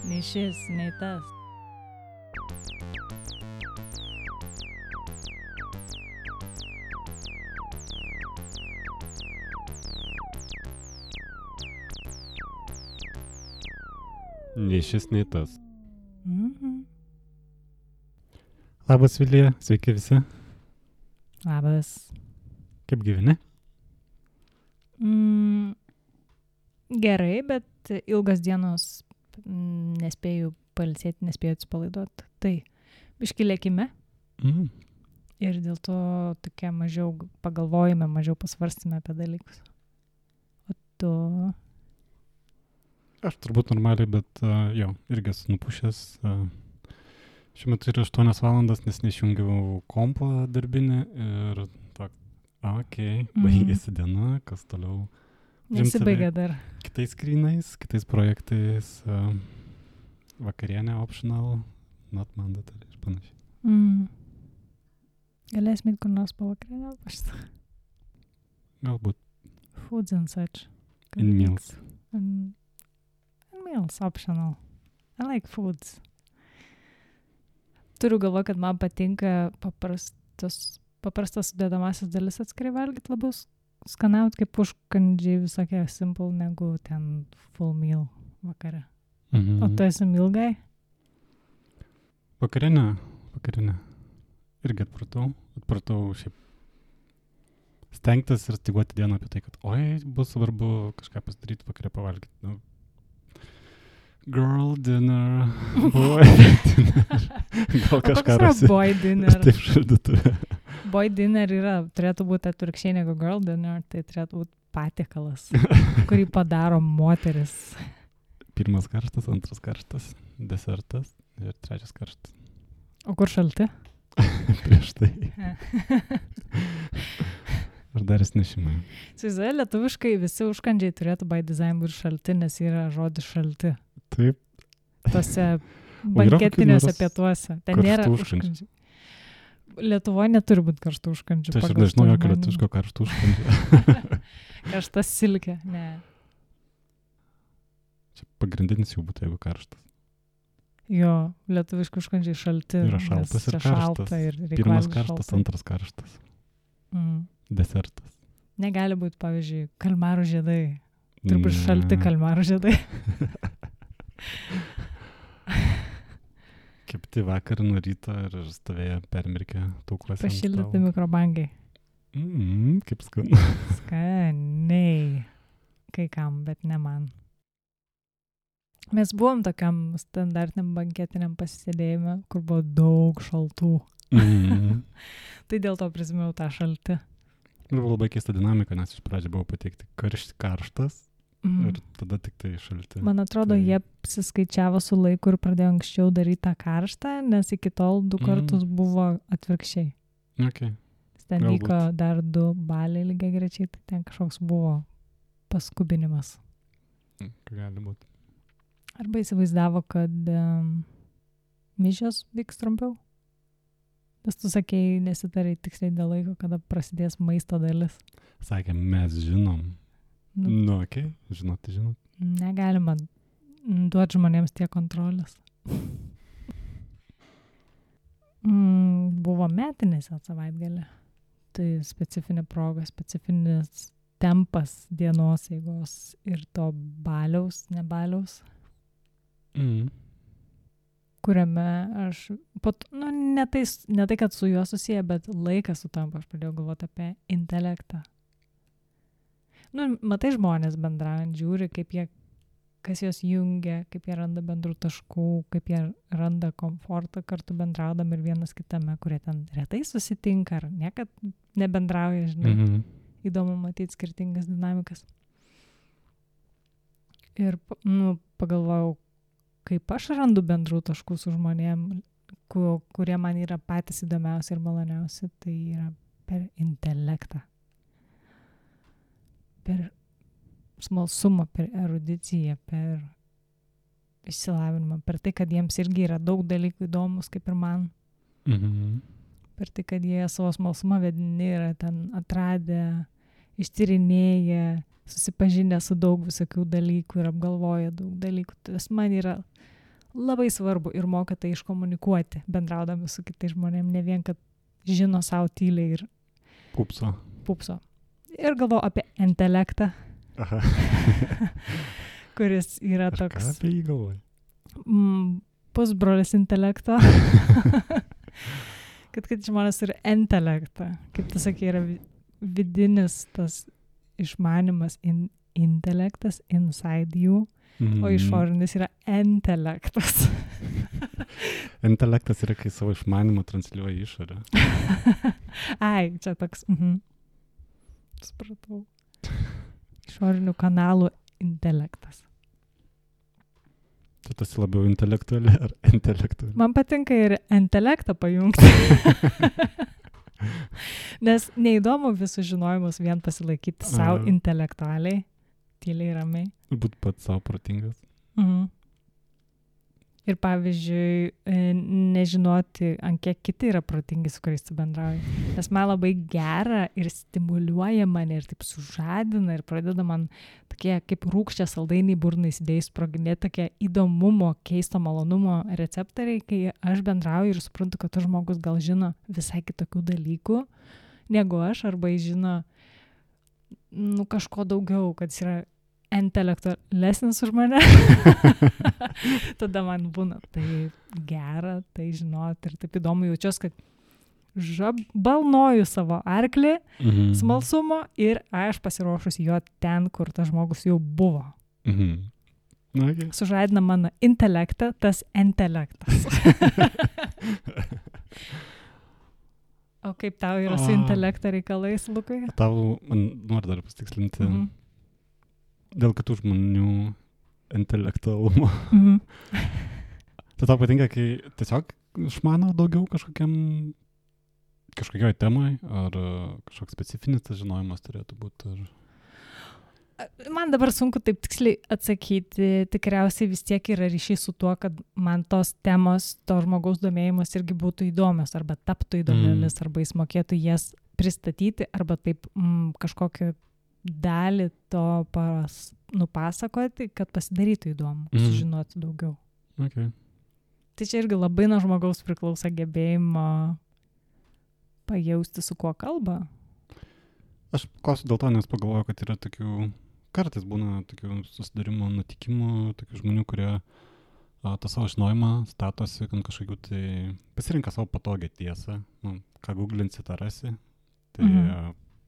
Nei šis, nei tas. Nei šis, nei tas. Mhm. Labas, Vilija, sveiki visi. Labas. Kaip gyveni? Gerai, bet ilgas dienos nespėjau pailsėti, nespėjau atsipalaiduoti. Tai biškį lėkime ir dėl to tokia mažiau pagalvojame, mažiau pasvarstame apie dalykus. O tu? Aš turbūt normaliai, bet jo, irgi esu nupušęs. Šiuo metu yra 8 valandas, nes neišjungiau kompo darbinį ir baigėsi diena, kas toliau. Nesibaigia dar. Kitais skrynais, kitais projektais, vakarienė optional, not mandatory ir panašiai. Galėsim eit kur nors po vakarienę? Galbūt. Foods and such. In meals. In meals, optional. I like foods. Turiu galvo, kad man patinka paprastas sudėdamasis dalis atskirai valgyti, labiau skanauti kaip užkandžiai visokie simple negu ten full meal vakare. O tu esi meal guy? Vakarienė. Irgi atpratau šiaip stengtis ir styguoti dieną apie tai, kad bus svarbu kažką pasidaryti vakare pavalgyti. Girl dinner, boy dinner. Gal kažką rasi. Boy dinner? Taip šaldytuvė. Boy dinner turėtų būti atvirkščiai negu girl dinner, tai turėtų būti patiekalas, kurį padaro moteris. 1 karštas, 2 karštas, desertas ir 3 karštas. O kur šalti? Prieš tai. Ar dar nešimai. Įsivaizduoju, lietuviškai visi užkandžiai turėtų by design būti šalti, nes yra žodis šalti. Taip. Tose banketiniuose pietuose. Ten nėra užkandžiai. Lietuvoje neturi būti karštų užkandžių. Tai aš nežinau jokio lietuviško karštų užkandžių. Karštas silkė, ne. Čia pagrindinis jau būtų, jeigu karštas. Jo, lietuviški užkandžiai šalti. Yra šaltas ir karštas. 1 karštas, 2 karštas. Desertas. Negali būti, pavyzdžiui, kalmarų žiedai. Turbūt šalti kalmarų žiedai. Kepti vakar nuo ryto ir stovėjo permirkę tauklose. Pašildyti mikrobangai. Kaip skanu. Skaniai. Kai kam, bet ne man. Mes buvom tokiam standartiniam banketiniam pasisėdėjime, kur buvo daug šaltų. Tai dėl to prisimėjau tą šaltį. Ir buvo labai keista dinamika, nes iš pradžio buvo pateikti karštas ir tada tik tai šalti. Man atrodo, jie apsiskaičiavo su laiku ir pradėjo anksčiau daryti tą karštą, nes iki tol 2 kartus buvo atvirkščiai. Okay. Ten vyko dar 2 baliai lygiai grečiai, tai ten kažkoks buvo paskubinimas. Gali būti. Arba įsivaizdavo, kad mišios vyks trumpiau. Nes tu sakėjai, nesitarai tiksliai dėl laiko, kada prasidės maisto dalis. Sakė, mes žinom. Okay. Žinot. Negalima duoti žmonėms tiek kontrolės. Buvo metinis savaitgalį. Tai specifinė proga, specifinis tempas dienos eigos ir to ne baliaus. Kuriame aš, ne tai, kad su juo susiję, bet laikas sutampa, aš pradėjau galvoti apie intelektą. Matai žmonės bendraujant, žiūri, kas juos jungia, kaip jie randa bendrų taškų, kaip jie randa komfortą kartu bendraudami ir vienas kitame, kurie ten retai susitinka ar niekad nebendrauja, žinai. Įdomu matyti skirtingas dinamikas. Ir, pagalvojau, kaip aš randu bendrų taškų su žmonėm, kurie man yra patys įdomiausi ir maloniausi, tai yra per intelektą. Per smalsumą, per erudiciją, per išsilavinimą, per tai, kad jiems irgi yra daug dalykų įdomus, kaip ir man. Per tai, kad jie savo smalsumą vedini yra ten atradę ištyrinėję, susipažinę su daug visokių dalykų ir apgalvoję daug dalykų. Tas man yra labai svarbu ir moka tai iškomunikuoti, bendraudami su kitais žmonėmis, ne vien, kad žino savo tyliai ir pupso. Ir galvoju apie intelektą, kuris yra toks... Ką apie jį galvoji? Pusbrolis intelekto. kad žmonės turi intelektą. Kaip tu sakai, yra vidinis tas išmanimas, intelektas inside you, o išorinis yra intelektas. Intelektas yra, kai savo išmanimą transliuoja į išorę. Ai, čia toks... Supratau. Išorinių kanalų intelektas. Tu esi labiau intelektuali ar intelektuali? Man patinka ir intelektą pajungti. Nes neįdomu visus žinojimus vien pasilaikyti savo intelektualiai, tyliai ramiai. Būt pats savo protingas. Ir pavyzdžiui, nežinoti, ant kiek kiti yra protingi, su kuriais tu bendrauji. Nes man labai gera ir stimuliuoja mane ir taip sužadina ir pradeda man tokie kaip rūgščia saldainiai burnai įsidėjus sproginėti tokie įdomumo, keisto malonumo receptoriai, kai aš bendrauju ir suprantu, kad tas žmogus gal žino visai kitokių dalykų negu aš, arba jis žino kažko daugiau, kad jis yra intelektualesnis už mane. Tada man būna tai gera, tai žinot ir taip įdomu jaučiuosi, kad balnoju savo arklį smalsumo ir aš pasiruošusi jo ten, kur tas žmogus jau buvo. Okay. Sužadina mano intelektą, tas intelektas. O kaip tau yra su intelekto reikalais, Lukai? Tau, man noriu dar pasitikslinti, dėl kitų žmonių intelektualumo. Tai tau patinka, kai tiesiog išmano daugiau kažkokioj temai, ar kažkoks specifinis tas žinojimas turėtų būti? Man dabar sunku taip tiksliai atsakyti, tikriausiai vis tiek yra ryšys su tuo, kad man tos temos, to žmogaus domėjimas irgi būtų įdomios, arba taptų įdomiomis, arba jis mokėtų jas pristatyti, arba taip kažkokią dalį to nupasakoti, kad pasidarytų įdomu, sužinoti daugiau. Okay. Tai čia irgi labai nuo žmogaus priklauso gebėjimo pajausti, su kuo kalba. Aš klausiu dėl to, nes pagalvoju, kad yra tokių, kartais būna tokių susidarimo, nutikimų, tokių žmonių, kurie tą savo žinojimą statosi, kad kažkokių tai pasirinka savo patogią tiesą, ką googlinsi, tą rasi, tai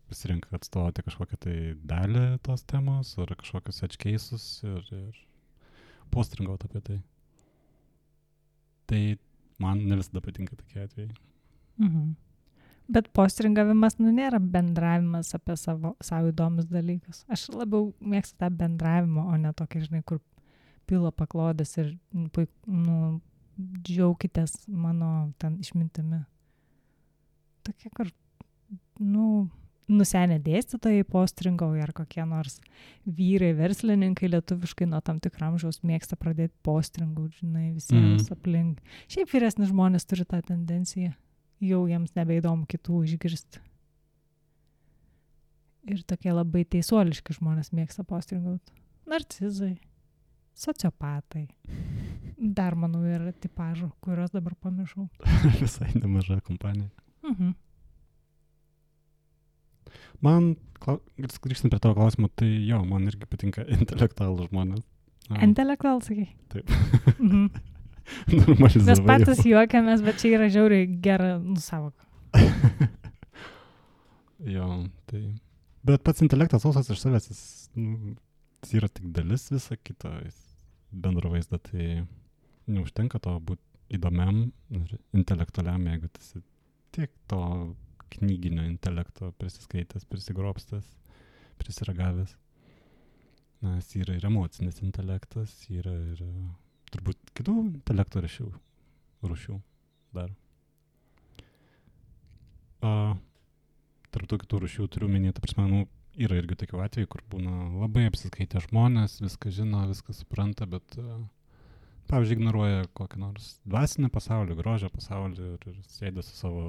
pasirinka atstovauti kažkokią tai dalį tos temos ar kažkokius edge cases ir postringauti apie tai. Tai man ne visada patinka tokie atvejai. Bet postringavimas nėra bendravimas apie savo įdomius dalykus. Aš labiau mėgstu tą bendravimą, o ne tokį, žinai, kur pila paklodės ir džiaukitės mano ten išmintimi. Tokie, kur, nusenę dėstytojai postringauja ar kokie nors vyrai, verslininkai lietuviškai nuo tam tikro amžiaus mėgsta pradėti postringauti, žinai, visiems aplink. Šiaip vyresni žmonės turi tą tendenciją. Jau jiems nebeįdomu kitų išgirsti. Ir tokie labai teisuoliški žmonės mėgsta postringauti. Narcizai, sociopatai. Dar, manau, yra tipažų, kurios dabar pamiršau. Visai nemaža kompanija. Man, grįžtant prie tavo klausimo, tai jo, man irgi patinka intelektualų žmonės. Intelektualų, sakai? Taip. Normalizavai. Mes patys juokiamės, bet čia yra žiauriai gera savoka. Jo, tai... Bet pats intelektas sausas iš savęs, jis yra tik dalis visą kitą bendro vaizdą, tai neužtenka to būti įdomiam ir intelektualiam, jeigu tas tiek to knyginio intelekto prisiskaitęs, prisigrobstas, prisiragavęs. Nes yra ir emocinis intelektas, yra ir turbūt kitų intelekto rūšių dar. Tarp tų kitų rūšių turiu minėti, ta prasme, yra irgi tokių atvejų, kur būna labai apsiskaitę žmonės, viską žino, viską supranta, bet pavyzdžiui, ignoruoja kokį nors dvasinį pasaulį, grožio pasaulį ir sėda su savo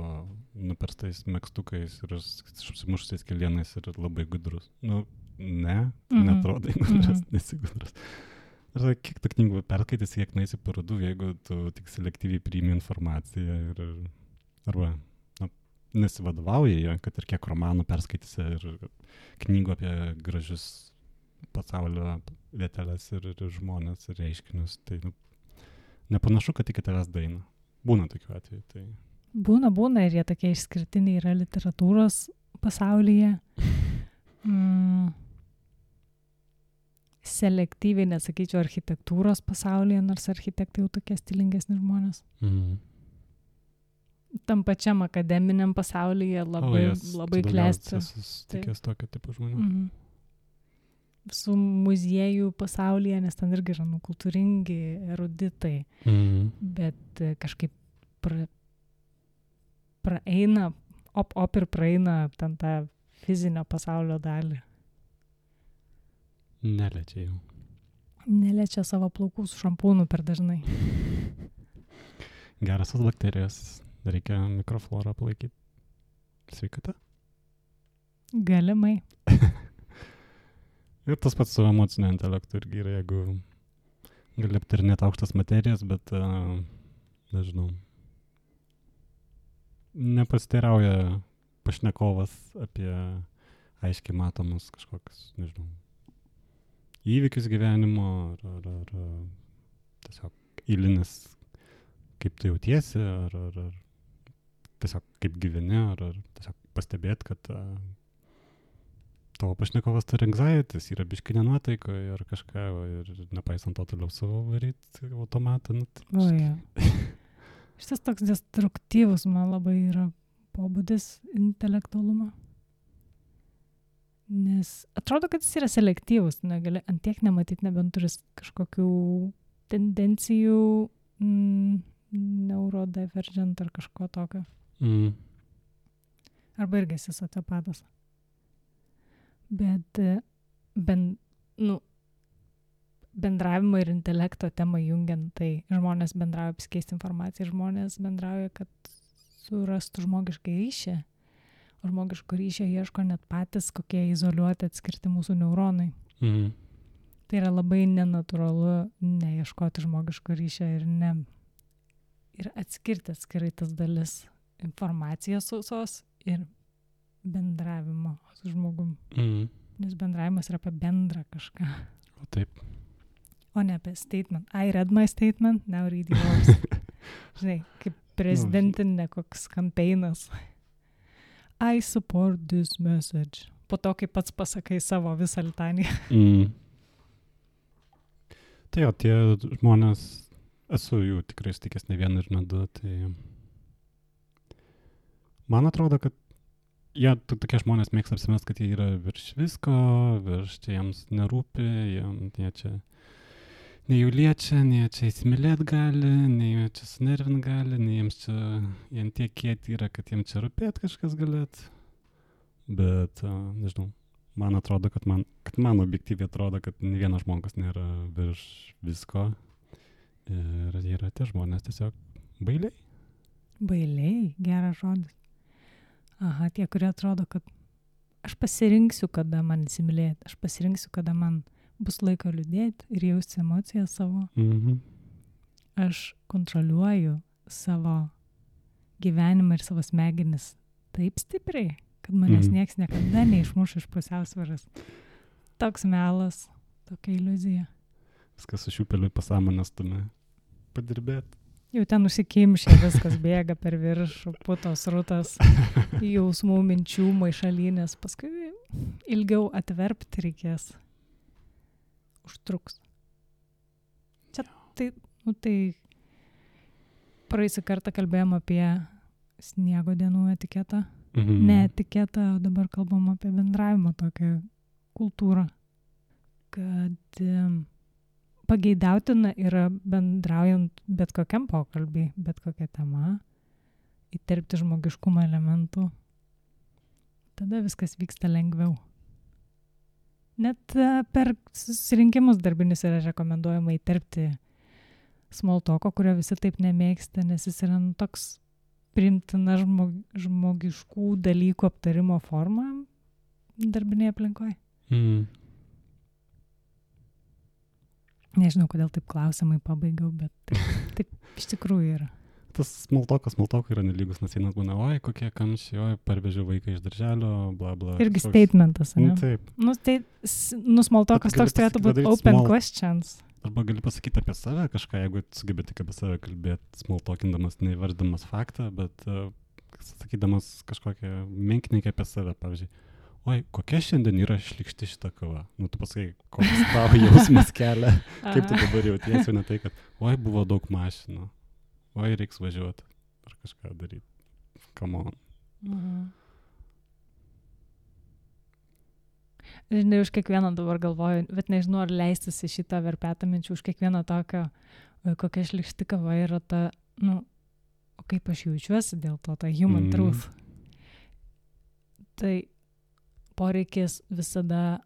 nuperstais megztukais ir apsimuštais kelienais ir labai gudrus. Nu, neatrodo gudrus, nesi gudrus. Ar kiek tų knygų perskaitysi, kiek naisi parodų, jeigu tu tik selektyviai priimi informaciją arba nesivadovauji ją, kad ir kiek romanų perskaitysi ir knygų apie gražius pasaulio vietelės ir žmonės ir reiškinius, tai nepanašu, kad iki tavęs daina. Būna tokių atvejų. Tai... Būna ir jie tokie išskirtiniai yra literatūros pasaulyje. Selektyviai, nesakyčiau, architektūros pasaulyje, nors architektai jau tokie stilingesni žmonės. Tam pačiam akademiniam pasaulyje labai klesti. Tikės tokio tipo žmonių. Su muziejų pasaulyje, nes ten irgi yra kultūringi, eruditai, bet kažkaip praeina, ir praeina ten tą fizinio pasaulio dalį. Neliečia jau. Neliečia savo plaukų su šampūnu per dažnai. Gerasios bakterijos, reikia mikroflorą palaikyti. Sveikata? Galimai. Ir tas pats su emocinio intelektu irgi yra, jeigu gali aptarinėti aukštas materijas, bet, nežinau, nepasiteirauja pašnekovas apie aiškiai matomus kažkokius, nežinau, įvykius gyvenimo ar tiesiog eilinis, kaip tu jautiesi, ar tiesiog kaip gyveni, ar tiesiog pastebėti, kad tavo pašnekovas turi anxieties, yra biški nenuotaikoje ar kažką, ir nepaisant to toliau savo varyti automatą. Šitas toks destruktyvus man labai yra pobūdis intelektualumo. Nes atrodo, kad jis yra selektyvus, negali antiek nematyti, nebent turis kažkokių tendencijų neurodivergent ar kažko tokio. Arba irgi esi sociopatas. Bet bendravimo ir intelekto temą jungiant, tai žmonės bendrauja apsikeisti informaciją, žmonės bendrauja, kad surastų žmogišką ryšį, o žmogiško ryšio ieško net patys, kokie izoliuoti atskirti mūsų neuronai. Tai yra labai nenatūralu neieškoti žmogiško ryšio ir atskirti atskirai tas dalis informacijos sausos ir bendravimo su žmogum. Nes bendravimas yra apie bendrą kažką. O taip. O ne apie statement. I read my statement, now read yours. Žinai, kaip prezidentinė koks kampeinas. I support this message. Po to, kai pats pasakai savo visą litaniją. Tai jo, tie žmonės, esu jų tikrai sutikęs ne vieną ir ne du, tai man atrodo, kad jie tokie žmonės mėgsta apsimest, kad jie yra virš visko, virš čia jiems nerūpi, jie čia nei jų liečia, nei jie čia įsimylėt gali, nei jie čia sunervint gali, nei jiems čia, jie tiek kieti yra, kad jiems čia rūpėt kažkas galėt. Bet, nežinau, man atrodo, kad man objektyviai atrodo, kad ne vienas žmogus nėra virš visko. Ir jie yra tie žmonės tiesiog bailiai. Bailiai, geras žodis. Aha, tie, kurie atrodo, kad aš pasirinksiu, kada man įsimylėti, aš pasirinksiu, kada man bus laiko liūdėti ir jausti emocijas savo. Aš kontroliuoju savo gyvenimą ir savo smegenis taip stipriai, kad manęs nieks niekada neišmuš iš pusiausvyros. Toks melas, tokia iliuzija. Viskas su šiupeliu pasąmonės tume padirbėti. Jau ten užsikimšė, viskas bėga per viršų, putos rutas, jausmų, minčių, maišalynės. Paskui ilgiau atverpti reikės. Užtruks. Čia tai praeisį kartą kalbėjom apie sniego dienų etiketą. Ne etiketą, o dabar kalbam apie bendravimo tokią kultūrą. Kad pageidautina yra bendraujant bet kokiam pokalbį, bet kokia tema, įterpti žmogiškumo elementų. Tada viskas vyksta lengviau. Net per susirinkimus darbinius yra rekomenduojama įterpti smoltoko, kurio visi taip nemėgsta, nes jis yra toks priimtina žmogiškų dalykų aptarimo forma darbinėje aplinkoje. Nežinau, kodėl taip klausimai pabaigiau, bet taip iš tikrųjų yra. Tas smoltokas yra nelygus, nes vienas būna, oi, kokie kamščiai, oi, parvežiau vaiką iš darželio, bla bla. Irgi statementas, ne? Taip. Smoltokas toks turėtų būti open questions. Arba gali pasakyti apie save kažką, jeigu sugebi tik apie save kalbėti, smoltokindamas, neįvarddamas faktą, bet sakydamas kažkokią menkininkę apie save, pavyzdžiui. Oi, kokia šiandien yra šlykšti šita kava. Nu, tu pasakai, koks tavo jausmas kelia, kaip tu dabar jautiesi, ne tai, kad, oi, buvo daug mašinų. Oi, reiks važiuoti ar kažką daryti. Come on. Žinai, už kiekvieną dabar galvoju, bet nežinau, ar leistis į šitą verpetą minčių, už kiekvieną tokio, kokia šlykšti kava yra ta, o kaip aš jaučiuosi dėl to, ta human truth. Tai poreikis visada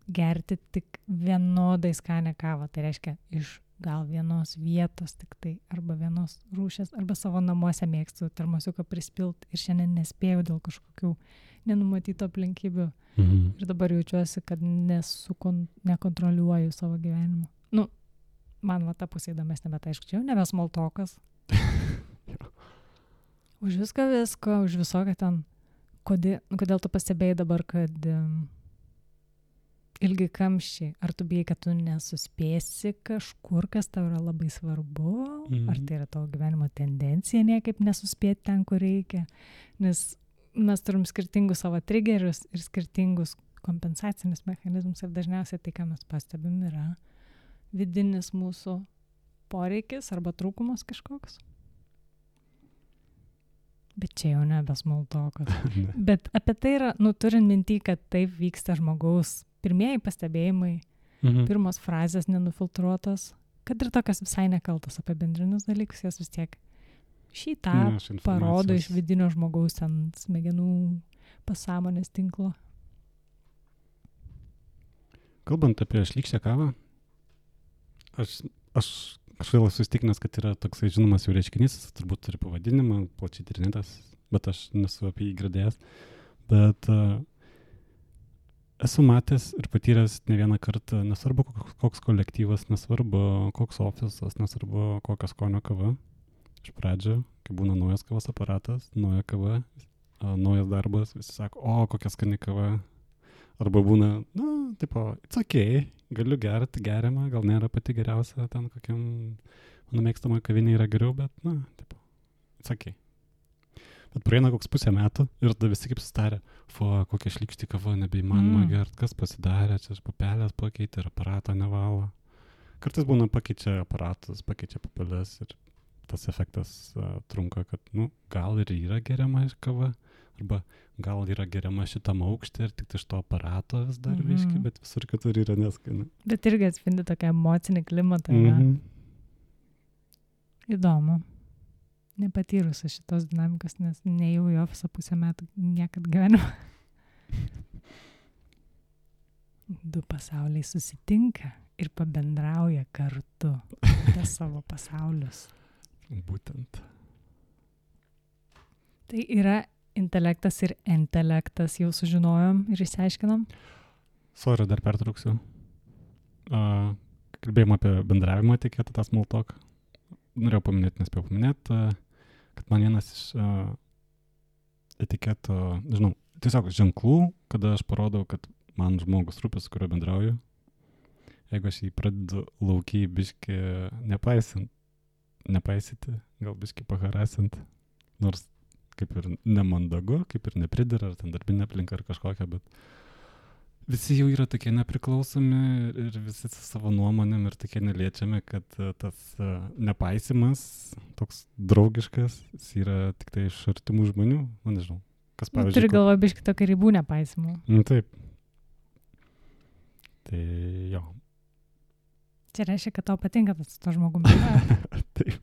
gerti tik vienodai skanę kavą. Tai reiškia, iš gal vienos vietos tik tai, arba vienos rūšės, arba savo namuose mėgstu termosiuką prispilt ir šiandien nespėjau dėl kažkokių nenumatytų aplinkybių. Ir dabar jaučiuosi, kad nekontroliuoju savo gyvenimo. Man va ta pusė įdomesnė, bet aišku, čia jau nebe smoltokas. Už visko, už visoką ten. Kodėl tu pastebėjai dabar, kad ilgi kamščiai, ar tu bijai, kad tu nesuspėsi kažkur, kas tau yra labai svarbu, ar tai yra tavo gyvenimo tendencija niekaip nesuspėti ten, kur reikia, nes mes turim skirtingus savo triggerius ir skirtingus kompensacinius mechanizmus ir dažniausiai tai, ką mes pastebim, yra vidinis mūsų poreikis arba trūkumas kažkoks. Bet čia jau nebe smoltokas. Bet apie tai yra, turint mintį, kad taip vyksta žmogaus pirmieji pastebėjimai, pirmos frazės nenufiltruotos, kad ir tokios visai nekaltos apibendrinus dalykus, jos vis tiek šitą parodo iš vidinio žmogaus ten smegenų pasąmonės tinklo. Kalbant apie šlykščią kavą, aš kažkaip esu įsitikinęs, kad yra toksai žinomas jau reiškinys, turbūt turi pavadinimą, plačiai tyrinėtas, bet aš nesu apie jį girdėjęs. Bet esu matęs ir patyręs ne vieną kartą, nesvarbu koks kolektyvas, nesvarbu koks ofisas, nesvarbu kokios skonio kava. Iš pradžio, kai būna naujas kavos aparatas, nauja kava, naujas darbas, visi sako, o kokia skani kava. Arba būna, it's okay, galiu gerti, geriama, gal nėra pati geriausia, ten kokiam mano mėgstama kavinė yra geriau, bet, it's okay. Bet praeina koks pusę metų ir tada visi kaip sustarė, kokia šlykšti kava, nebeįmanoma gert, kas pasidarė, čia papelės pakeitė ir aparato nevalo. Kartais būna pakeičia aparatus, pakeičia papelės ir tas efektas trunka, kad, gal ir yra geriama kava, arba gal yra geriama šitam aukštė ir tik iš to aparato vis dar viški, bet visur kitur yra neskani. Bet irgi atspindi tokią emocinį klimatą. Įdomu. Nepatyrusi šitos dinamikos, nes nejau į ofisą pusę metų niekad gyvenimo. Du pasauliai susitinka ir pabendrauja kartu apie savo pasaulius. Būtent. Tai yra intelektas ir intelektas, jau sužinojom ir išsiaiškinom. Sorry, dar pertrauksiu. Kalbėjom apie bendravimo etiketą, tą small talk. Norėjau paminėti, nespėjau paminėti, kad man vienas iš etiketo, tiesiog ženklų, kada aš parodau, kad man žmogus rūpi, su kuriuo bendrauju. Jeigu aš jį pradedu laukiai biškį nepaisyti, gal biškį paharasint, nors kaip ir nemandagu, kaip ir nepridera, ar ten darbinė aplinka ar kažkokia, bet visi jau yra tokie nepriklausomi ir visi su savo nuomonėm ir tokie neliečiami, kad tas nepaisimas, toks draugiškas, jis yra tik tai iš artimų žmonių, nežinau, kas pavyzdžiui. Turi galvoje biškį tokį ribų nepaisimų. Taip. Tai jo. Čia reiškia, kad tau patinka tas to žmogumi. Taip.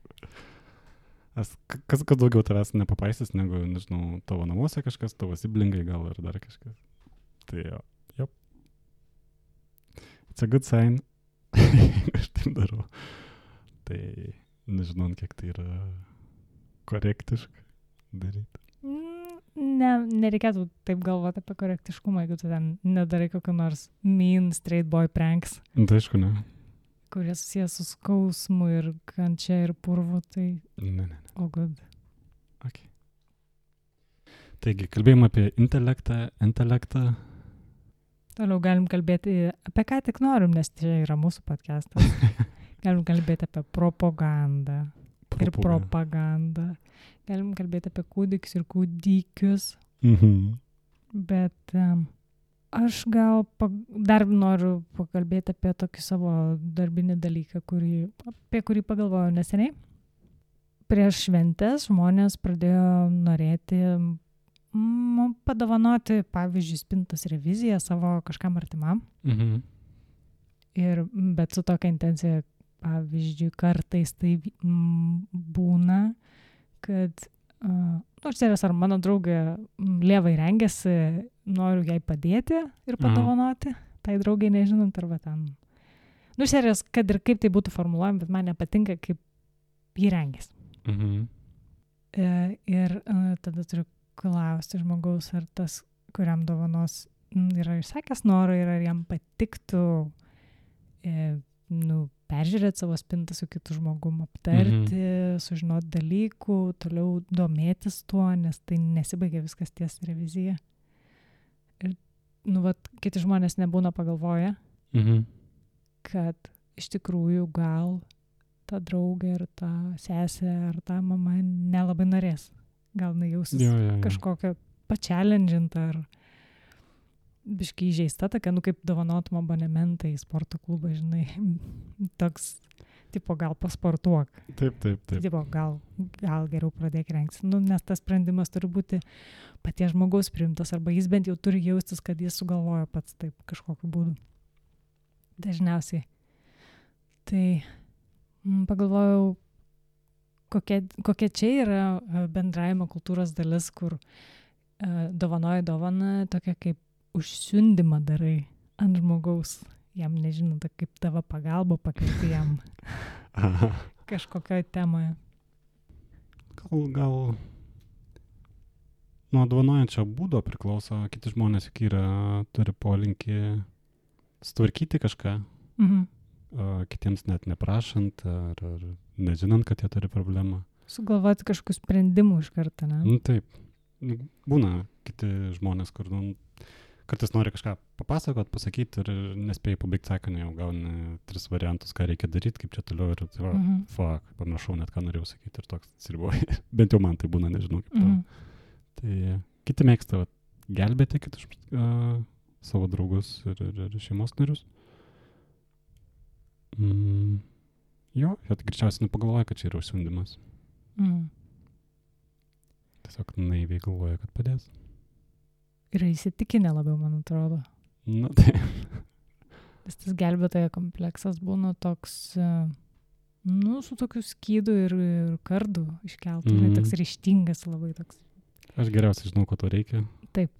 Kas daugiau tavęs nepapaisys, negu, tavo namuose kažkas, tavo siblingai gal ir dar kažkas. Tai jo. It's a good sign. aš taip darau. Tai nežinau, kiek tai yra korektiška daryti. Nereikėtų taip galvoti apie korektiškumą, jeigu tu ten nedarai kokio nors mean straight boy pranks, Tai aišku, ne. kurie susijęs su skausmu ir kančia ir purvu, tai Ne. oh good. Okay. Taigi, kalbėjom apie intelektą. Toliau galim kalbėti apie ką tik norim, nes čia yra mūsų podcastas. Galim kalbėti apie propagandą. Ir propagandą. Galim kalbėti apie kūdikius ir kūdikius. Bet aš gal dar noriu pakalbėti apie tokį savo darbinį dalyką, apie kurį pagalvojau neseniai. Prieš šventes žmonės pradėjo norėti padovanoti, pavyzdžiui, spintos reviziją savo kažkam artimam. Bet su tokia intencija, pavyzdžiui, kartais tai būna, kad nors ar mano draugė lievai rengiasi, noriu jai padėti ir padovanoti, tai draugai nežinant, arba ten. Serijos, kad ir kaip tai būtų formuluojama, bet man nepatinka, kaip jį rengiasi. Ir tada turiu klausti žmogaus, ar tas, kuriam dovanos yra išsakęs norą ir ar jam patiktų peržiūrėti savo spintą su kitu žmogum, aptarti, sužinoti dalykų, toliau domėtis tuo, nes tai nesibaigia viskas ties revizija. Ir, kiti žmonės nebūna pagalvoję, kad iš tikrųjų gal ta draugė ar ta sesė ar ta mama nelabai norės. Gal nejausis kažkokią pačialendžintą ar biškai įžeista, tokia, kaip dovanotum abonementą į sporto klubą, žinai, toks, tipo, gal pasportuok. Taip. Tipo, gal geriau pradėk rengtis. Nes tas sprendimas turi būti paties žmogaus priimtas, arba jis bent jau turi jaustis, kad jis sugalvojo pats taip kažkokiu būdu. Dažniausiai. Tai pagalvojau, kokia čia yra bendravimo kultūros dalis, kur dovanoja dovaną tokia kaip užsiundimą darai ant žmogaus, jam nežinant, kaip tavo pagalba pakvieti jam kažkokioje temoje. Gal nuo dovanojančio būdo priklauso, kiti žmonės turi polinkį sutvarkyti kažką, kitiems net neprašant ar nežinant, kad jie turi problemą. Sugalvoti kažkokių sprendimų iš karto, ne? Taip. Būna kiti žmonės, kur kartais nori kažką papasakot, pasakyti ir nespėjai pabaigti sakinį, jau gauni 3 variantus, ką reikia daryti, kaip čia toliau ir pamiršau net, ką norėjau sakyti ir toks atsiriboji. Bent jau man tai būna, nežinau kaip tau. Tai kiti mėgsta gelbėti kitus savo draugus ir šeimos narius. Jo, tai greičiausiai nepagalvoja, kad čia yra užsiundimas. Tiesiog naiviai galvoja, kad padės. Yra įsitikinę labiau, man atrodo. Tai. Tas gelbėtojo kompleksas būna toks, su tokiu skydu ir kardu iškeltų, toks ryžtingas labai toks. Aš geriausiai žinau, ko to reikia. Taip.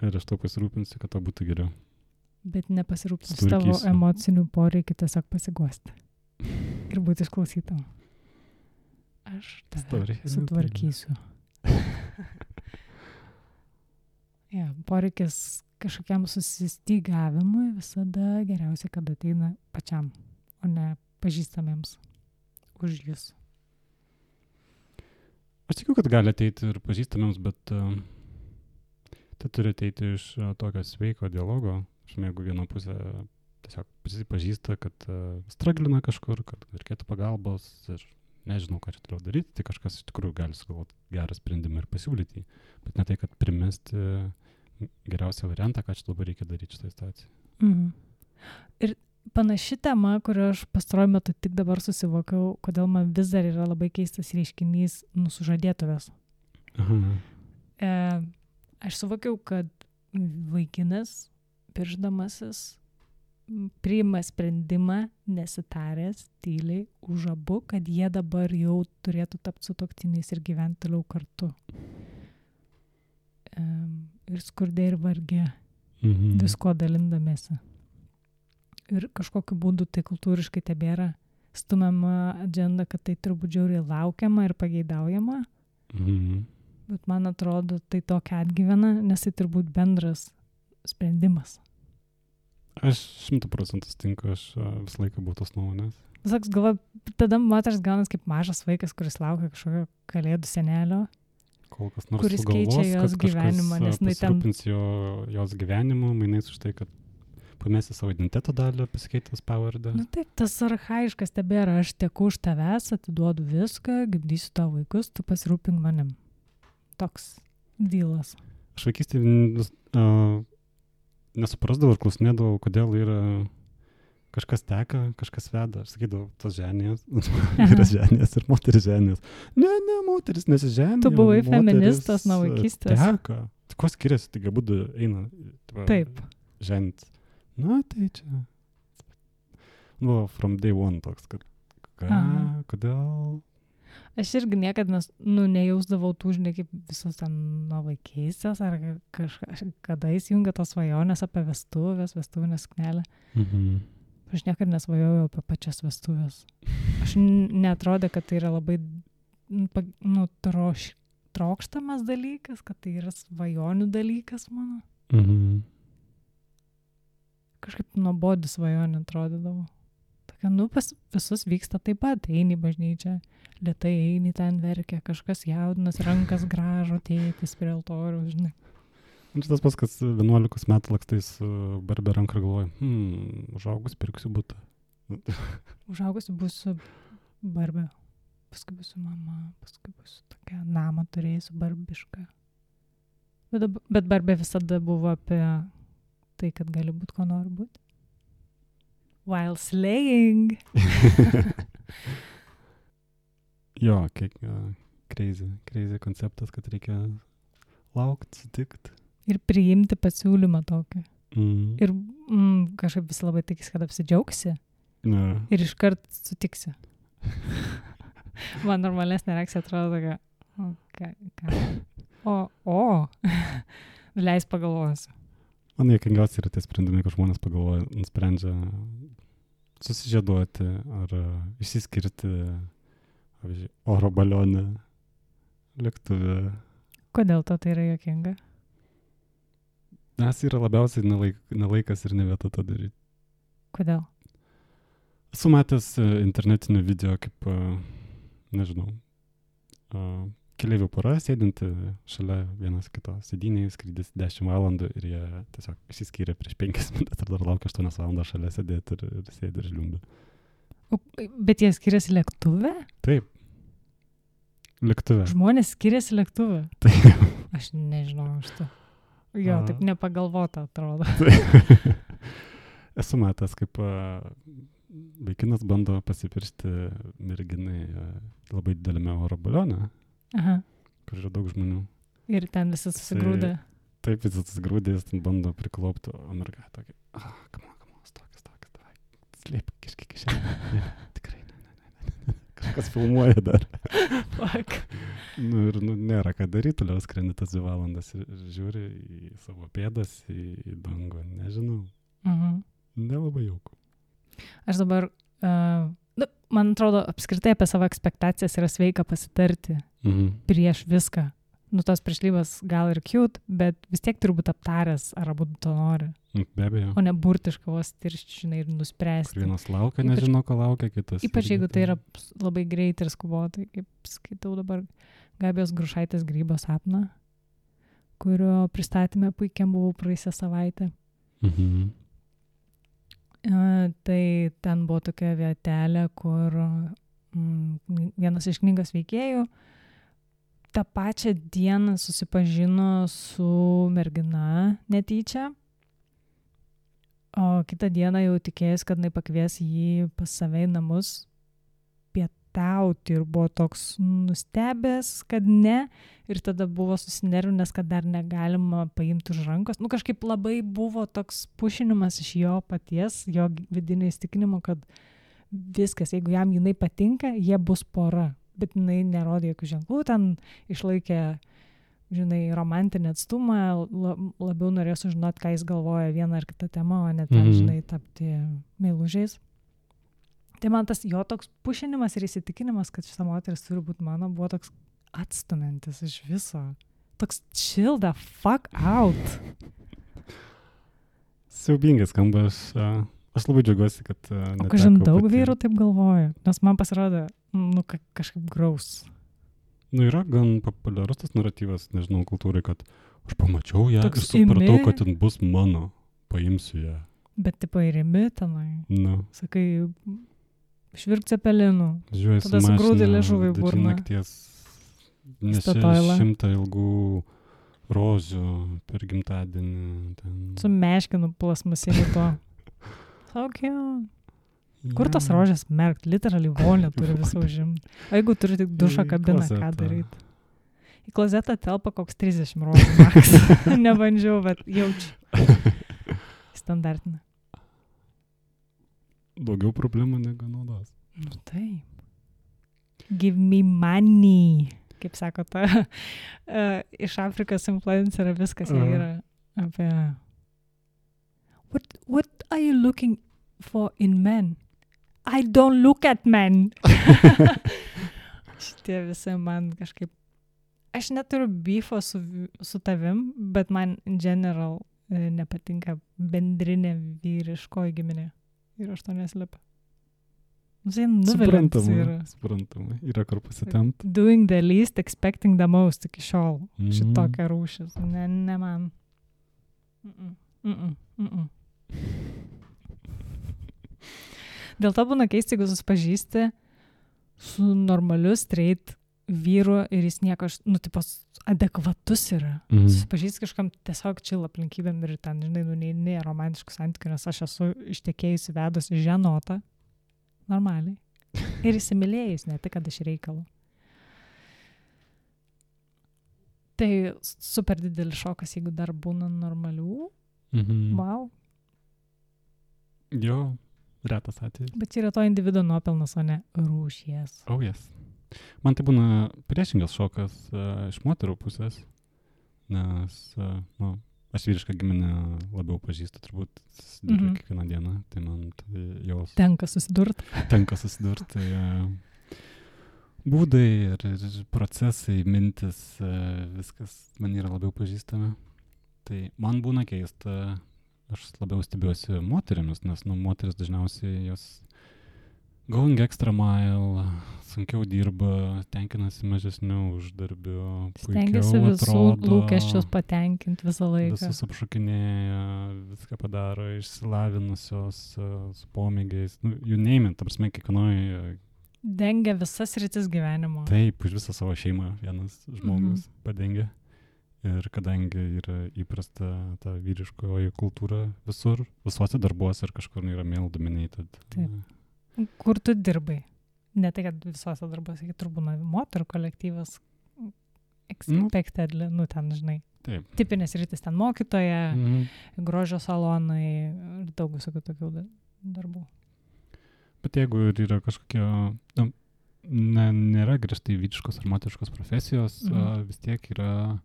Ir aš to pasirūpinsiu, kad to būtų geriau. Bet nepasirūpinsiu tavo emocinių poreikių, tiesiog pasiguosti. Ir būti išklausytam. Aš tave sutvarkysiu. Poreikis kažkokiam susistygavimui visada geriausia, kad ateina pačiam, o ne pažįstamiems už jūs. Aš tikiu, kad gali ateiti ir pažįstamiems, bet tai turi ateiti iš tokio sveiko dialogo. Jeigu viena pusė tiesiog prisipažįsta, kad straglina kažkur, kad reikėtų pagalbos ir nežinau, ką čia toliau daryti, tai kažkas iš tikrųjų gali sugalvoti gerą sprendimą ir pasiūlyti. Bet ne tai, kad primesti geriausią variantą, ką čia dabar reikia daryti šitą situaciją. Ir panaši tema, kurią aš pastaruoju metu tik dabar susivokiau, kodėl man vis dar yra labai keistas reiškinys sužadėtuvės. Aš suvokiau, kad vaikinas, piršdamasis, priima sprendimą nesitaręs tyliai už abu, kad jie dabar jau turėtų tapti sutuoktiniais ir gyventi toliau kartu. Ir skurde ir varge, visko dalindamėsi. ir kažkokiu būdu tai kultūriškai tebėra stumiama agenda, kad tai turbūt žiauriai laukiama ir pageidaujama. Bet man atrodo, tai tokia atgyvena, nes tai turbūt bendras sprendimas. Aš 100% sutinku, aš visą laiką buvau tos nuomonės. Saks, galva, tada moters gaunas kaip mažas vaikas, kuris laukia kažkokio kalėdų senelio, Kol kas nors kuris sugalvos, keičia jos kad gyvenimą, nes jinai ten... pasirūpins jos gyvenimu, mainais už tai, kad pamesi savo identiteto dalį, pasikeitęs pavardę. Nu taip, tas archaiškas tebėra, aš teku už tavęs, atiduodu viską, gimdysiu tavo vaikus, tu pasirūpink manim. Toks dylas. Aš vaikystėje nesuprasdavau ir klausinėdavau, kodėl yra kažkas teka, kažkas veda. Aš sakydavau, tos ženės, yra ženės ir moteris ženės. Ne, moteris nesiženė. Tu buvai feministas nuo vaikystės. Teka. Tai ko skiriasi, tai galbūt eina. Taip. Ženit. Na, tai čia. Nu, from day one toks, kad kodėl? Aš irgi niekada nejausdavau tų, žinai, kaip visos ten nuo vaikystės, ar kada įsijungia tos svajonės apie vestuvinę suknelę. Aš niekada nesvajojau apie pačias vestuvės. Aš neatrodė, kad tai yra labai trokštamas dalykas, kad tai yra svajonių dalykas mano. Kažkaip nuobodi svajonė atrodydavo. Tokia, pas visus vyksta taip pat, eini į bažnyčią, lėtai eini ten verkia, kažkas jaudinas, rankas gražo, tėtis prie altorių, žinai. Tas pas, kas 11 metų lakstais Barbė ranką ir galvoja, užaugus pirksiu butą. Užaugusi būsiu Barbė, paskui būsiu mama, paskui būsiu tokia namą turėsiu barbišką. Bet Barbė visada buvo apie tai, kad gali būti, ko nori būti. While slaying. Jo, kiek crazy konceptas, kad reikia laukti, sutikti. Ir priimti pasiūlymą tokį. Ir kažkaip visi labai tikisi, kad apsidžiaugsi. Ir iškart sutiksi. Man normalesnė reakcija atrodo tokia, leis pagalvosiu. Man juokingiausia yra tie sprendimai, kad žmonės pagalvoja, nusprendžia susižieduoti ar išsiskirti, pavyzdžiui, oro balionę, lėktuvę. Kodėl to tai yra juokinga? Nes yra labiausiai nelaikas ir ne vieta to daryti. Kodėl? Esu matęs internetinį video, kaip, nežinau, keleivių pora sėdinti šalia vienas kito sėdynėje, skrydis 10 valandų ir jie tiesiog išsiskyrė prieš 5 minutės ir dar laukia 8 valandą šalia sėdėti ir sėdi ir žliumbi. Bet jie skiriasi lėktuve? Taip. Lėktuve. Žmonės skiriasi lėktuve? Taip. Aš nežinau iš to. Jo, taip nepagalvota atrodo. Esu matęs, kaip vaikinas bando pasipiršti merginai labai didelėme oro balione. Aha. Kur yra daug žmonių. Ir ten visi susigrūdė. Taip, visi susigrūdė, jis ten bando priklaupti, o merga tokia, come on, stokis, davai, slėpk kažkiek kišenę. Ne, tikrai, ne. Kažkas filmuoja dar. Fuck. Ir nėra ką daryti, toliau skrendi tas 2 valandas ir žiūri į savo pėdas, į dangų, nežinau. Nelabai jauku. Aš dabar... man atrodo, apskritai apie savo ekspektacijas yra sveika pasitarti prieš viską. Tos priešlybės gal ir cute, bet vis tiek turi būti aptaręs, ar abu to nori. Be abejo. O ne burtiškai vos tiršti, žinai, ir nuspręsti. Kur vienas laukia, nežino, ko laukia kitas. Ypač jeigu tai yra labai greitai ir skubotai, kaip skaitau dabar Gabijos Grušaitės Grybo sapną, kurio pristatymė puikiam buvau praėjusią savaitę. Tai ten buvo tokia vietelė, kur vienas iš knygos veikėjų tą pačią dieną susipažino su mergina netyčia, o kitą dieną jau tikėjęs, kad jinai pakvies jį pas save į namus pietauti ir buvo toks nustebęs, kad ne, ir tada buvo susinervinęs, kad dar negalima paimti už rankos. Kažkaip labai buvo toks pušinimas iš jo paties, jo vidinio įstikinimo, kad viskas, jeigu jam jinai patinka, jie bus pora. Bet jinai nerodė jokių ženklų, ten išlaikė žinai, romantinį atstumą, labiau norės sužinoti, ką jis galvoja vieną ar kitą temą, o ne ten, žinai, tapti meilužiais. Tai man tas jo toks pušinimas ir įsitikinimas, kad šita moteris turi būti mano, buvo toks atstumiantis iš viso. Toks chill the fuck out. Siaubingai skamba, aš labai džiaugiuosi, kad... O kažin daug vyrų taip galvoja, nes man pasirodė, kažkaip graus. Yra gan populiarus tas naratyvas, nežinau, kultūrai, kad aš pamačiau ją ir supratau, kad ten bus mano, paimsiu ją. Bet tipo ir imi tenai. Sakai, švirk cepelinų. Žiūrėjau, tada sugrūdė liežuvį burną. Nakties nešė 100 ilgų rožių per gimtadienį. Ten. Su meškinu plasmasiniu to. So cute. Kur tos rožės merkt? Literally vonė turi visą užimti. O jeigu turi tik dušo kabiną, ką daryti? Į klozetą telpa koks 30 rožių maks. Nebandžiau, bet jaučiu. Standartinė. Daugiau problemų negu naudos. Taip. Give me money. Kaip sako ta iš Afrikos influencerė viskas jie yra apie What are you looking for in men? I don't look at men. Šitie visi man kažkaip aš neturiu beefo su tavim, bet man in general nepatinka bendrinė vyriškoji giminė. Ir aš to neslepiu. Suprantama. Yra kur pasitempt. Doing the least, expecting the most iki šiol. Šitokia rūšis. Ne man. Dėl to būna keista, jeigu susipažįsti su normaliu straight vyru ir jis nieko, adekvatus yra. Susipažįsti kažkam tiesiog chill aplinkybėm ir ten, žinai, ne romantiškų santykių, nes aš esu ištekėjusi vedusi ženotą. Normaliai. Ir įsimylėjus, ne tik, kad iš reikalo. Tai super didelis šokas, jeigu dar būna normalių. Wow. Jo, retas atvejis. Bet čia yra to individuo nuopelnas, o ne rūšies. Oh, yes. Man tai būna priešingas šokas iš moterų pusės, nes, aš vyrišką giminę labiau pažįstu, turbūt susiduriu kiekvieną dieną, tai man tai jos... Tenka susidurti. Tai būdai ir procesai, mintis, viskas man yra labiau pažįstama. Tai man būna keista, aš labiau stebiuosi moterimis, nes moteris dažniausiai jos going extra mile, sunkiau dirba, tenkinasi mažesniu uždarbiu, stengiasi visų lūkesčius patenkinti visą laiką. Visus apšokinėja, viską padaro, išsilavinusios, su pomėgiais, you name it, ta prasme, kiekvienoj... Dengia visas rytis gyvenimo. Taip, už visą savo šeimą vienas žmogus padengia. Ir kadangi yra įprasta ta vyriškoji kultūra visur, visuose darbuose ir kažkur yra male dominated. Taip. Kur tu dirbai? Ne tai, kad visuose darbuose, kai turbūt moterų kolektyvas expected, ten, žinai. Taip. Tipinės rytis ten mokytoja, grožio salonai ir daug visokių tokių darbų. Bet jeigu yra kažkokie, nėra griežtai vyriškos ar moteriškos profesijos, vis tiek yra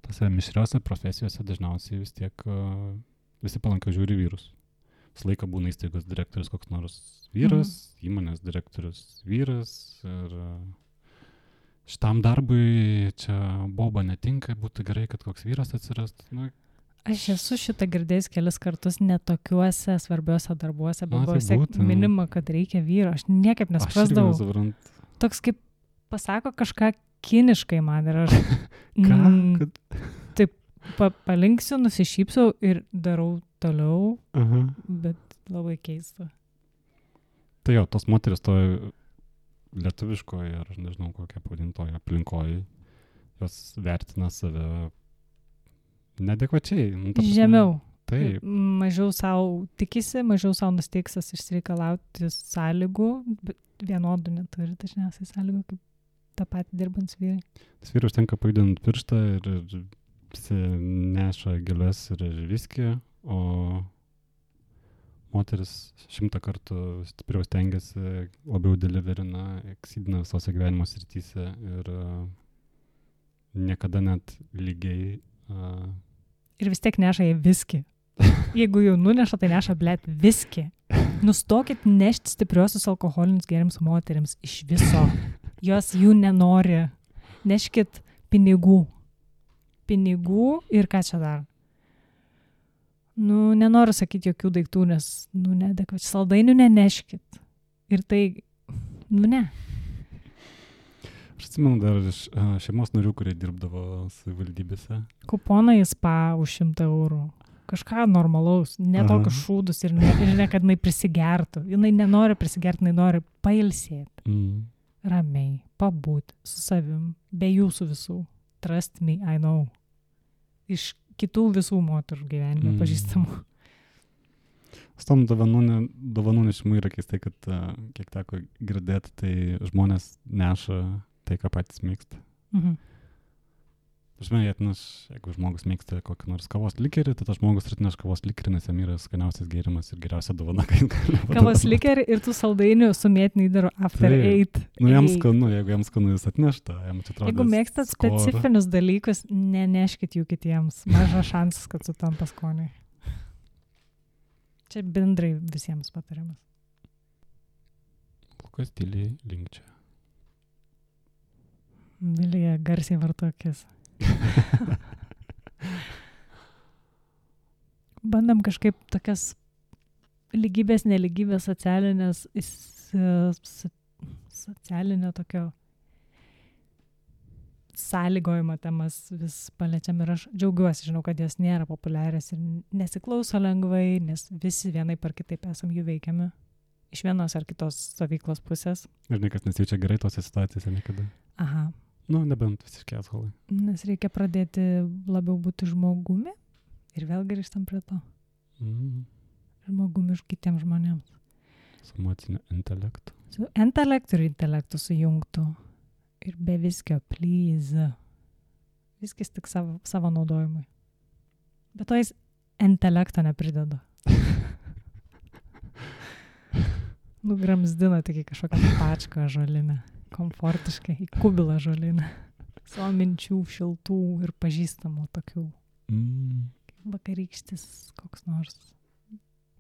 tose mišriose profesijose dažniausiai vis tiek visi palankiau žiūri vyrus. Visą laiką būna įstaigos direktorius koks nors vyras, įmonės direktorius vyras ir šitam darbui čia boba netinka, būtų gerai, kad koks vyras atsirastų. Aš esu šitą girdėjęs kelis kartus netokiuose svarbiuose darbuose, bet buvo minima, kad reikia vyro. Aš niekaip nesprasdavau. Toks kaip pasako kažką kiniškai man ir aš taip palinksiu, nusišypsau ir darau toliau, bet labai keista. Tai jo, tos moteris toje lietuviškoje, ar nežinau kokią pavadintoje aplinkoje, jos vertina save neadekvačiai. Žemiau. Taip. Mažiau savo tikisi, mažiau savo nusteiksas išsireikalauti sąlygų, bet vienodų neturi dažniausiai sąlygų, kaip tą patį dirbant vyrai. Tas vyrai užtenka pajudinti pirštą ir visi neša gėles ir viskį, o moteris 100 kartų stipriau stengiasi, labiau deliverina, eksidina visose gyvenimo srityse ir niekada net lygiai. Ir vis tiek neša į viskį. Jeigu jau nuneša, tai neša, blėt, viskį. Nustokit nešti stipriosius alkoholinius gėrimus moterims iš viso. Jos jų nenori. Neškit pinigų. Pinigų ir ką čia dar? Nenoriu sakyti jokių daiktų, nes, neadekvačiai. Saldainių neneškit. Ir tai, ne. Aš atsimenu dar iš šeimos narių, kurie dirbdavo savivaldybėse. Kuponą į spa už 100 eurų. Kažką normalaus, ne tokius šūdus ir ne, kad jinai prisigertų. Jinai nenori prisigerti, jinai nori pailsėti. Ramiai, pabūti su savim, be jūsų visų. Trust me, I know. Iš kitų visų moterų gyvenime pažįstamų. Su tom dovanų nešimu yra keistai, kad kiek teko girdėti, tai žmonės neša tai, ką patys mėgsta. Jeigu žmogus mėgsta kokį nors kavos likerį, tai tas žmogus atneš kavos likerį, nes jam yra skaniausias gėrimas ir geriausia dovana, ką jis gali padovanoti. Kavos likerį ir tų saldainių su mėtiniai daro after 8. Jam skanu, jeigu jam skanu jis atnešta. Jeigu mėgstat specifinius dalykus, neneškit jų kitiems. Mažas šansas, kad sutampa skoniai. Čia bendrai visiems patarimas. Lukas tyliai linkčia. Vilija garsiai vartokis. Bandam kažkaip tokias lygybės, nelygybės, socialinio tokio sąlygojimo temas vis paliečiam ir aš džiaugiuosi, žinau, kad jos nėra populiarios ir nesiklauso lengvai, nes visi vienai par kitaip esam jų veikiami iš vienos ar kitos stovyklos pusės. Ir niekas nesijaučia gerai tose situacijose niekada. Aha. Nebent visiškai asholai. Nes reikia pradėti labiau būti žmogumi ir vėl grįžtam prie to. Žmogumi iš kitiems žmonėms. Su emociniu intelektu. Su intelektu ir intelektu sujungtų. Ir be viskio, please. Viskis tik savo naudojimui. Bet to jis intelekto neprideda. Gramzdina tik į kažkokią pačką žolinę. Komfortiškai, į kubilą žolinę. Savo minčių, šiltų ir pažįstamų tokių. Vakarykštis koks nors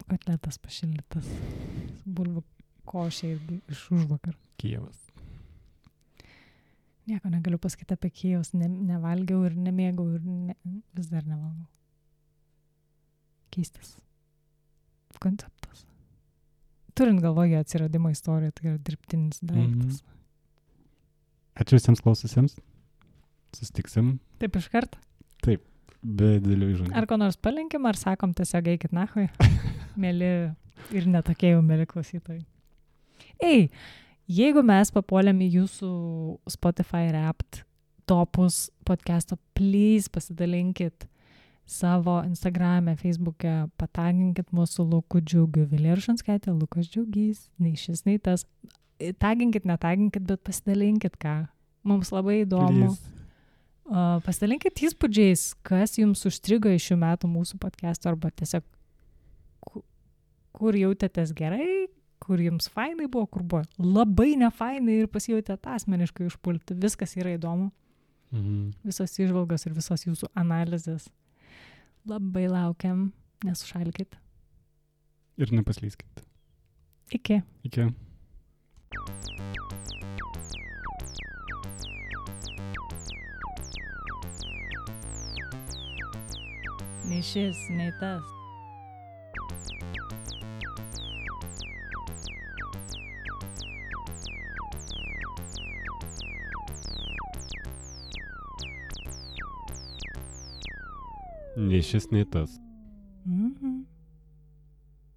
kotletas pašildytas. Bulvių košė irgi iš užvakar. Kijevas. Nieko negaliu pasakyti apie Kijevus. Nevalgiau ir nemėgau ir vis dar nevalgau. Keistas konceptas. Turint galvoje atsiradimo istoriją, tai yra dirbtinis daiktas. Ačiū visiems klaususiems. Susitiksim. Taip iš karto? Taip, be didelių įžangų. Ar ko nors palinkim, ar sakom tiesiog eikit nachui? Mėly ir netokie jau mėly klausytojai. Jeigu mes papuolėm į jūsų Spotify Wrapped topus podcast'o, please pasidalinkit savo Instagram'e, Facebook'e, pataginkit mūsų Luku Džiugiu, Vilija Rušanskaitė, Lukas Džiugys, nei šis, nei tas. Taginkit, netaginkit, bet pasidalinkit ką. Mums labai įdomu. Pasidalinkit įspūdžiais, kas jums užstrigo iš šių metų mūsų podcast'o, arba tiesiog kur jautėtės gerai, kur jums fainai buvo, kur buvo labai nefainai ir pasijautėt asmeniškai užpulti. Viskas yra įdomu. Visos įžvalgos ir visos jūsų analizės. Labai laukiam, nesušalkit. Ir nepaslyskit. Iki. Nei šis, nei tas. Nei šis, nei tas. Mhm.